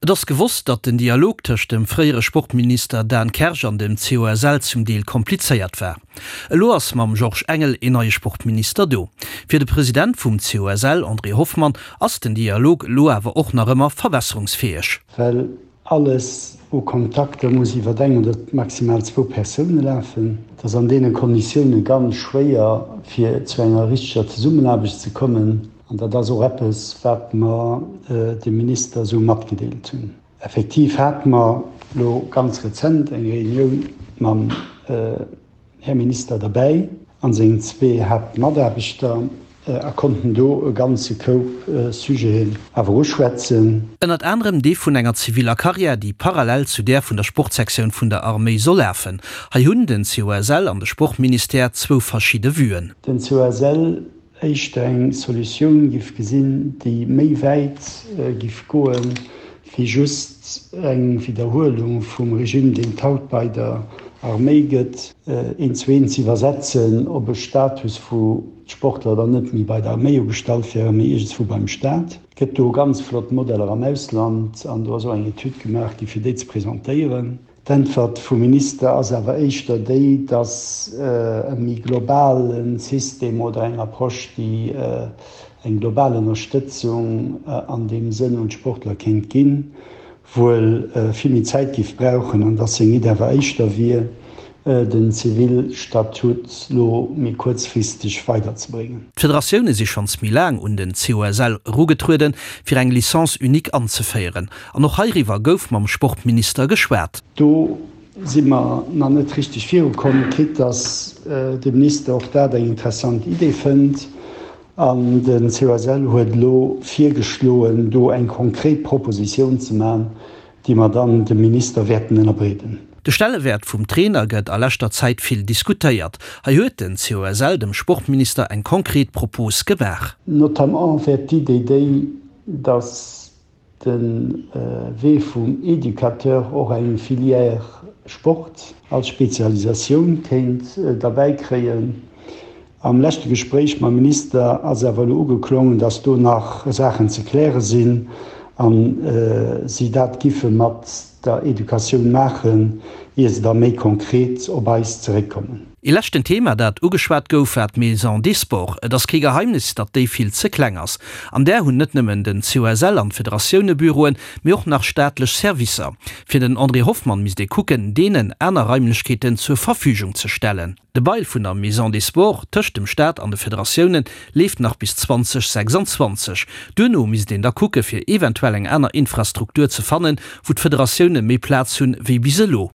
Et ass gewosst, datt den Dialog tëscht dem fréiere Sportminister Dan Kersch an dem COSL zum Deel komplizéiert war. Elo ass mam Georges Engel een neie Sportminister do. Fir de President vum COSL, André Hoffmann, ass den Dialog elo awer och nach ëmmer verbesserungsfäeg. Well alles u Kontakter muss iwwer eng oder maximal zwou Persoune lafen. Et ass an deene Konditioune ganz schwéier, fir zu enger richteger Zesummenaarbecht ze kommen. An dat ass och eppes, wat mer dem Minister esou matgedeelt hunn. Effektiv hate mer elo ganz rezent eng Reunioun mam Här Minister derbäi a sengen zwee Haaptmataarbechter a konnten do e ganze Koup Sujeten awer uschwätzen. Ënnert anerem dee vun enger ziviller Karriär, déi parallel zu där vun der Sportsektioun vun der Arméi soll lafen. Hei hunn den COSL an de Sportministère zwou verschidde Vuen. Den COSL éischter eng Solutioun giff gesinn, déi méi wäit giff goen, wéi just eng Widderhuelung vum Regime, deen et haut bei der Arméi gëtt, eent zu eent ze iwwersetzen op e Status, wou d'Sportler dann net méi bei der Arméi ugestallt wären, mee iergendswou beim Staat. Et gëtt do ganz flott Modeller am Ausland an do ass och eng Etüd gemaach gi fir déi ze presentéieren. D'Äntwert vum Minister ass awer éischter déi, datt e méi globale System oder eng Approche, déi eng global Ënnerstëtzung an deem Sënn un d'Sportler kéint ginn, wuel vill méi Zäit géif brauchen an datt seng Iddi awer éischter wier, den Zivilstatut lo méi kuerzfristeg weiderzebréngen. D'Federatioune si schonns méi laang un den COSL erugetrueden, fir eng Licence unique anzeféieren. An och heiriwwer gouf mam Sportminister geschwat. Do si mer nach net richteg virukomm, quitte dass de Minister och dat eng interessant Idee fënnt. An de COSL huet elo virgeschloen, do eng konkret Propositioun ze maachen, déi mer dann dem Minister wäerten ënnerbreeden. De Stellewäert vum Trainer gëtt a leschter Zäit vill diskutéiert. Hei huet den COSL dem Sportminister eng konkret Propos gemaach. Notamment wär d'Idee déi, dass de Wee vum Educateur och eng Filière Sport als Spezialisatioun kéint derbäi kréien. Am leschte Gespréich mam Minister ass awer elo ugeklongen, dass do nach Saachen ze kläre sinn a si dat giffe mat der Educatioun maachen, ier se da méi konkret op eis zeréckkommen. Ee leschten Thema, dat ugeschwat gouf, war d'Maison des Sports. Et ass kee Geheimnis, datt déi vill ze kleng ass. An där hunn net nëmmen den COSL an d'Federatioune Büroen, mee och nach staatlech Servicer. Fir den André Hoffmann misst ee kucken, deenen aner Raimlechkeeten zur Verfügung ze stellen. De Bail vun der Maison des Sports tëscht dem Staat an de Federatioune leeft nach bis 2026. Duerno misst een da kucke fir eventuell eng aner Infrastruktur ze fannen, wou d'Federatioune méi Plaz hunn, wéi bis elo.